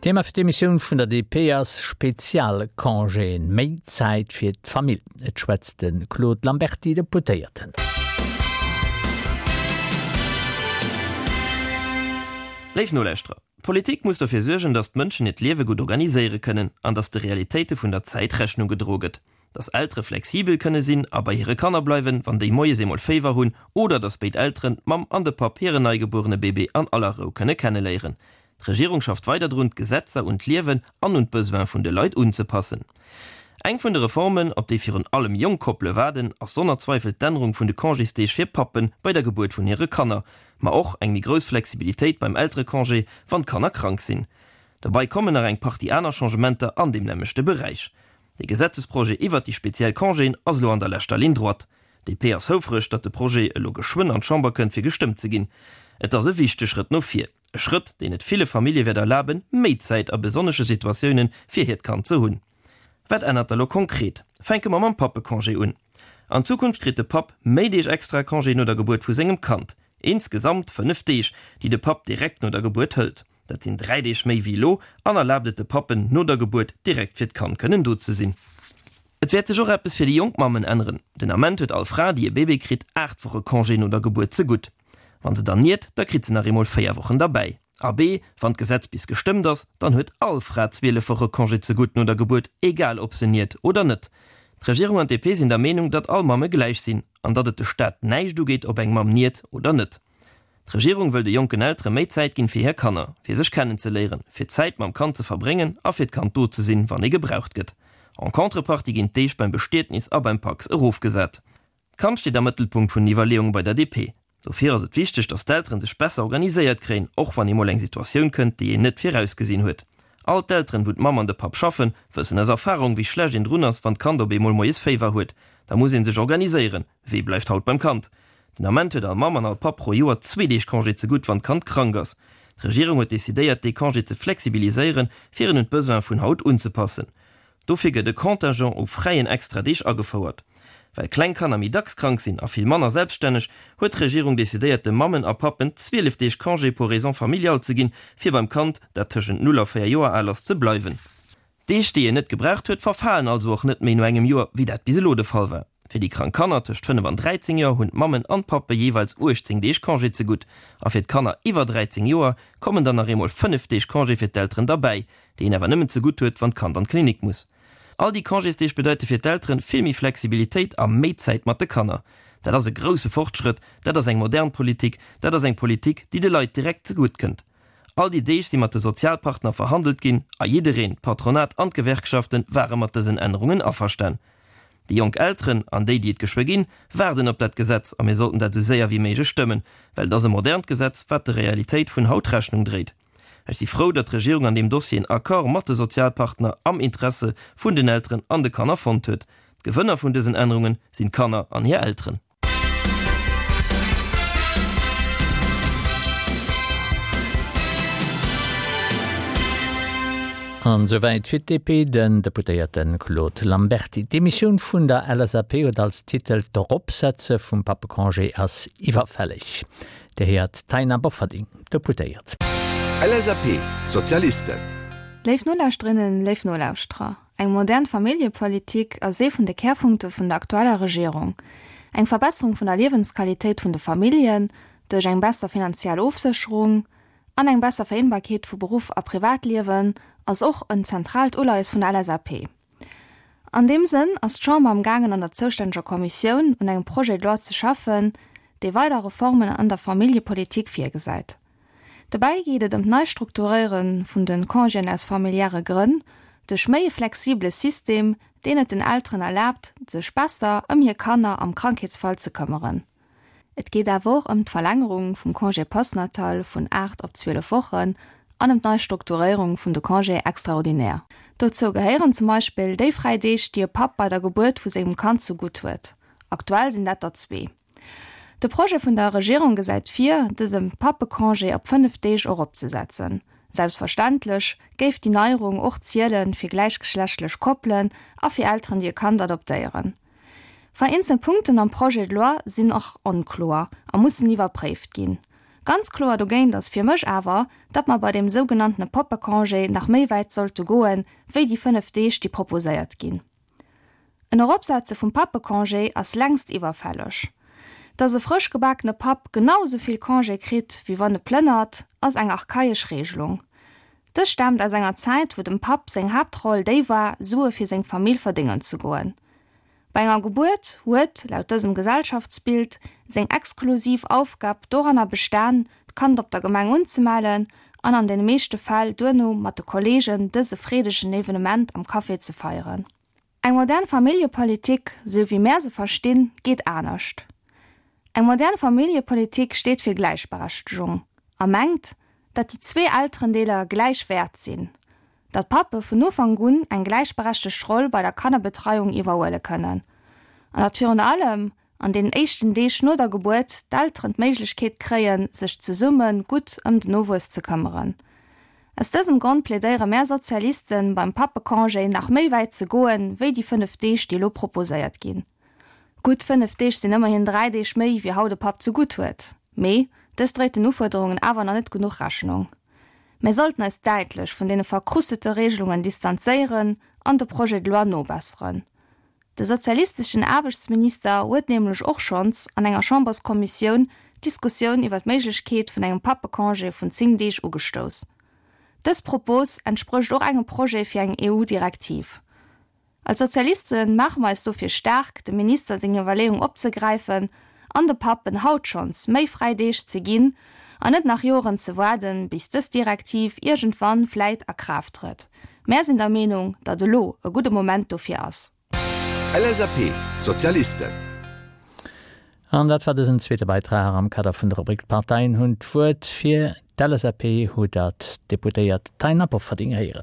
Thema fir d'Emissioun vun der DP ass Spezialcongéen, méi Zäit fir d'Famill. Et schwätzt de Claude Lamberty, Deputéierten. Léif Nolauschterer, d'Politik muss dofir suergen, datt d'Mënschen hiert Liewe gutt organiséiere kënnen an datt de Realitéite vun der Zäit Rechnung gedroe gëtt. Datt Eltere flexibel kënne sinn a bei hire Kanner bleiwen, wann déi moies eemol Féiwer hunn, oder datt béid Elteren, d'Mamm an de Papp, hiren neigebuerene Bébé an aller Rou kënne kenneléieren. D'Regierung schafft weider drun, d'Gesetzer un d'Liewen an un d'Besoin vun de Leit unzepassen. Eng vun de Reformen, op déi virun allem jonk Koppele waarden, ass sonner Zweifel d'Ännerung vun de Congésdeeg fir Pappe bei der Gebuert vun hire Kanner, ma och eng méi grouss Flexibilitéit beim Elterecongé, wann d'Kanner krank sinn. Dobei kommen nach eng Partie aner Changementer an deem nämmlechte Beräich. De Gesetzesprojet iwwert déi speziell Congéen ass elo an der leschter Ligne droite. DP ass houfreg, datt de Projet elo geschwënn an d'Chamber kënnt fir gestëmmt ze ginn. Et ass e wichteg Schrëtt no vir, e Schrëtt, deen et ville Famillje wäert erlaben, méi Zäit a besonnesche Situatioune fir hiert Kand ze hunn. Wat ännert da lo konkret? Fänke mer mam Pappecongé un. An Zukunft kritt de Papp méi Deeg extra Congé no der Gebuert vu sengem Kand. Insgesamt 5 Deeg, déi de Papp direkt no der Gebuert hëlt. Dat sinn 3 Deeg méi wéi elo an erlaabt et de Pappen, no der Gebuert direkt fir d'Kand kënnen do ze sinn. Et wäert sech och eppes fir déi jonk Mammen änneren. Den Ament huet all Fra, déi e Bébé kritt, 8 Woche Congé no der Gebuert zegutt. Wann se dann niert, da kritt se nach eemol 4 Wochen derbäi. Abee, wann d'Gesetz bis gestëmmt ass, dann huet all Fra 12 Woche Congé zegutt no der Gebuert, egal ob se niert oder net. D'Regierung an d'DP sinn der Meenung, datt all Mamme gläich sinn an datt et de Staat näischt ugeet, ob eng Mamm niert oder net. D'Regierung wëll de jonken Eltere méi Zäit ginn fir hir Kanner, fir sech kennenzeléieren, fir Zäit mam Kand ze verbréngen a fir d'Kand do ze sinn, wann ee gebraucht gëtt. En Contrepartie ginn d'Deeg beim Bestietnis a beim Pacs erofgesat. D'Kand steet am Mëttelpunkt vun den Iwwerleeunge bei der DP. Dofir ass et wichteg, datt d'Elteren sech besser organiséiert kréien, och wann eemol eng Situatioun kënnt, déi een net virausgesinn huet. All d'Elteren, wou d'Mamm an de Papp schaffen, wëssen aus Erfarung, wéi schlecht een drun ass, wann d'Kand op eemol moies Féiwer huet. Da muss ee sech organiséieren, Wee bleift haut beim Kand? Den Ament huet all Mamm an all Papp pro Joer zwee Deeg Congé zegutt, wann d'Kand krank ass. D'Regierung huet decidéiert, dee Congé ze flexibiliséieren, fir en un d'Besoine vun haut unzepassen. Dofir gëtt e Contingent u fräien Extradeeg agefouert. Well kleng Kanner méi dacks krank sinn a vill manner selbststänneg, huet d'Regierung decidéiert, de Mammen a Pappen 12 Deeg Congé pour raisons familiales ze ginn, fir beim Kand, dat tëschent 0 a 4 Joer al ass, ze bleiwen. Deeg, déi een net gebraucht huet, verfalen also och net méi no engem Joer, wéi dat bis elo de Fall war. Fir déi krank Kanner tëscht 5 an 13 Joer hunn d'Mammen an d'Pappe jeeweils 18 Deeg Congé zegutt. A fir d'Kanner iwwer 13 Joer kommen dann nach eemol 5 Deeg Congé fir d'Elteren derbäi, déi een awer nëmmen zegutt huet, wann d'Kand an d'Klinik muss. All déi Congésdeeg bedeite fir d'Elteren vill méi Flexibilitéit a méi Zäit mat de Kanner. Dat ass e grousse Fortschrëtt, dat ass eng modern Politik, dat ass eng Politik, déi de Leit direkt zegutt kënnt. All déi Deeg si mat de Sozialpartner verhandelt ginn a jiddereen, d'Patronat an d'Gewerkschaften, ware mat dësen Ännerungen averstan. Déi jonk Elteren an déi, déi et geschwë ginn, waarden op dat Gesetz a mir sollten dat esou séier wéi méiglech stëmmen, well et ass e modernt Gesetz, wat der Realitéit vun haut Rechnung dréit. Ech si frou, datt d'Regierung an deem Dossier en Accord mat de Sozialpartner am Interesse vun den Elteren an de Kanner fonnt huet. D'Gewënner vun dësen Ännerunge sinn d'Kanner an hir Elteren. An esouwäit fir d'DP den Deputéierte Claude Lamberty. D'Demissioun vun der LSAP huet als Titel D'Eropsetze vum Pappecongé ass iwwerfälleg. Dir héiert d'Taina Bofferding, Deputéiert. LSAP, D'Sozialisten. Léif Nolauschterinnen, léif Nolauschterer. Eng modern Familljepolitik ass ee vun de Kärpunkte vun der aktueller Regierung. Eng Verbesserung vun der Liewensqualitéit vun de Familljen duerch eng besser finanziell Ofsécherung an eng besser Vereenbarkeet vu Beruff a Privatliewen ass och en zentraalt Uleies vun der LSAP. An deem Sënn ass d'Chamber am gaangen an der zoustänneger Kommissioun un engem Projet de loi ze schaffen, dee weider Reformen an der Familljepolitik virgesäit. Dobäi geet et ëm d'Neistrukturéiere vun de Congéen aus familiäre Grënn duerch méi e flexibele System, deen et den Elteren erlaabt, sech besser ëm hir Kanner am Krankheetsfall ze këmmeren. Et geet awer och ëm d'Verlängerung vum Congé postnatal vun 8 op 12 Wochen an ëm d'Neistrukturéierung vun de Congés extraordinaires. Dozou gehéieren zum Beispill déi fräi Deeg, déi e Papp bei der Gebuert vu sengem Kand zegutt huet. Aktuell sinn dat der zwee. De Projet vun der Regierung gesäit vir, dëse Pappecongé op 5 Deeg eropzesetzen. Selbstverständlech géif déi Neierung och ziele fir gläichgeschlechtlech Koppelen a fir Elteren, déi e Kand adoptéieren. Vereenzel Punkten am Projet de loi sinn och onkloer a mussen iwwerpréift ginn. Ganz kloer dogéint ass fir mech awer, datt mer bei deem sougenanntene Pappecongé nach méi wäit sollte goen, wéi déi 5 Deeg, déi proposéiert ginn. En Eropsetze vum Pappecongé ass längst iwwerfälleg. Dass e frësch gebakene Papp genau esou vill Congé kritt, wéi wann e plënnert, ass eng archaesch Regelung. Dës staamt aus enger Zäit, wou dem Papp seng Haaptroll déi war, Sue fir seng Famill verdéngen ze goen. Bei enger Gebuert huet, laut dësem Gesellschaftsbild, seng exklusiv Aufgab doranner bestan, d'Kand op der Gemeng unzemellen an an den meeschte Fäll duerno mat de Kollegen dëse freedegen Evenement am Café ze feieren. Eng modern Familljepolitik, sou wéi mär se verstinn, geet anescht. Eng modern Familljepolitik steet fir Gläichberechtegung a mengt, datt déi zwee Elterendeeler gläich wäert sinn, datt d'Pappe vun Ufank un eng gläichberechtegt Roll bei der Kannerbetreiung iwwerhuele kënnen an datt virun allem an deenen éischten Deeg no der Gebuert d'Elteren d'Méiglechkeet kréien, sech zesumme gutt ëm den Nowuess ze këmmeren. Aus dësem Grond plädéiere mär Sozialisten, beim Pappecongé nach méi wäit ze goen, wéi déi 5 Deeg, déi elo proposéiert ginn. Gutt 5 Deeg sinn ëmmerhin 3 Deeg méi, wéi haut e Papp ze gutt huet. Mee dës dréit den Ufuerderungen awer nach net genuch Rechnung. Mär sollten eis däitlech vun deene verkrustete Regelungen distanzéieren an de Projet de loi nobesseren. De sozialisteschen Aarbechtsminister huet nämlech och schonns an enger Chamberskommissioun d'Diskussioun iwwer d'Méiglechkeet vun engem Pappecongé vun 10 Deeg ugestouss. Dës Propos entsprécht och engem Projet fir eng EU-Direktiv. Als Sozialiste maache mer eis dofir staark, dem Minister seng Iwwerleeung opzegräifen an de Pappen haut schonns méi fräi Deeg ze ginn an net nach Joren ze waarden, bis dës Direktiv iergendwann vläit a Kraaft trëtt. Mär sinn der Meenung, datt elo e gudde Moment dofir ass. LSAP, Sozialisten. An dat war dësen zweete Beitrag am Kader vun der Rubrik D'Parteien hunn d'Wuert. Fir d'LSAP hutt Der d'Deputéiert Taina Bofferding héieren.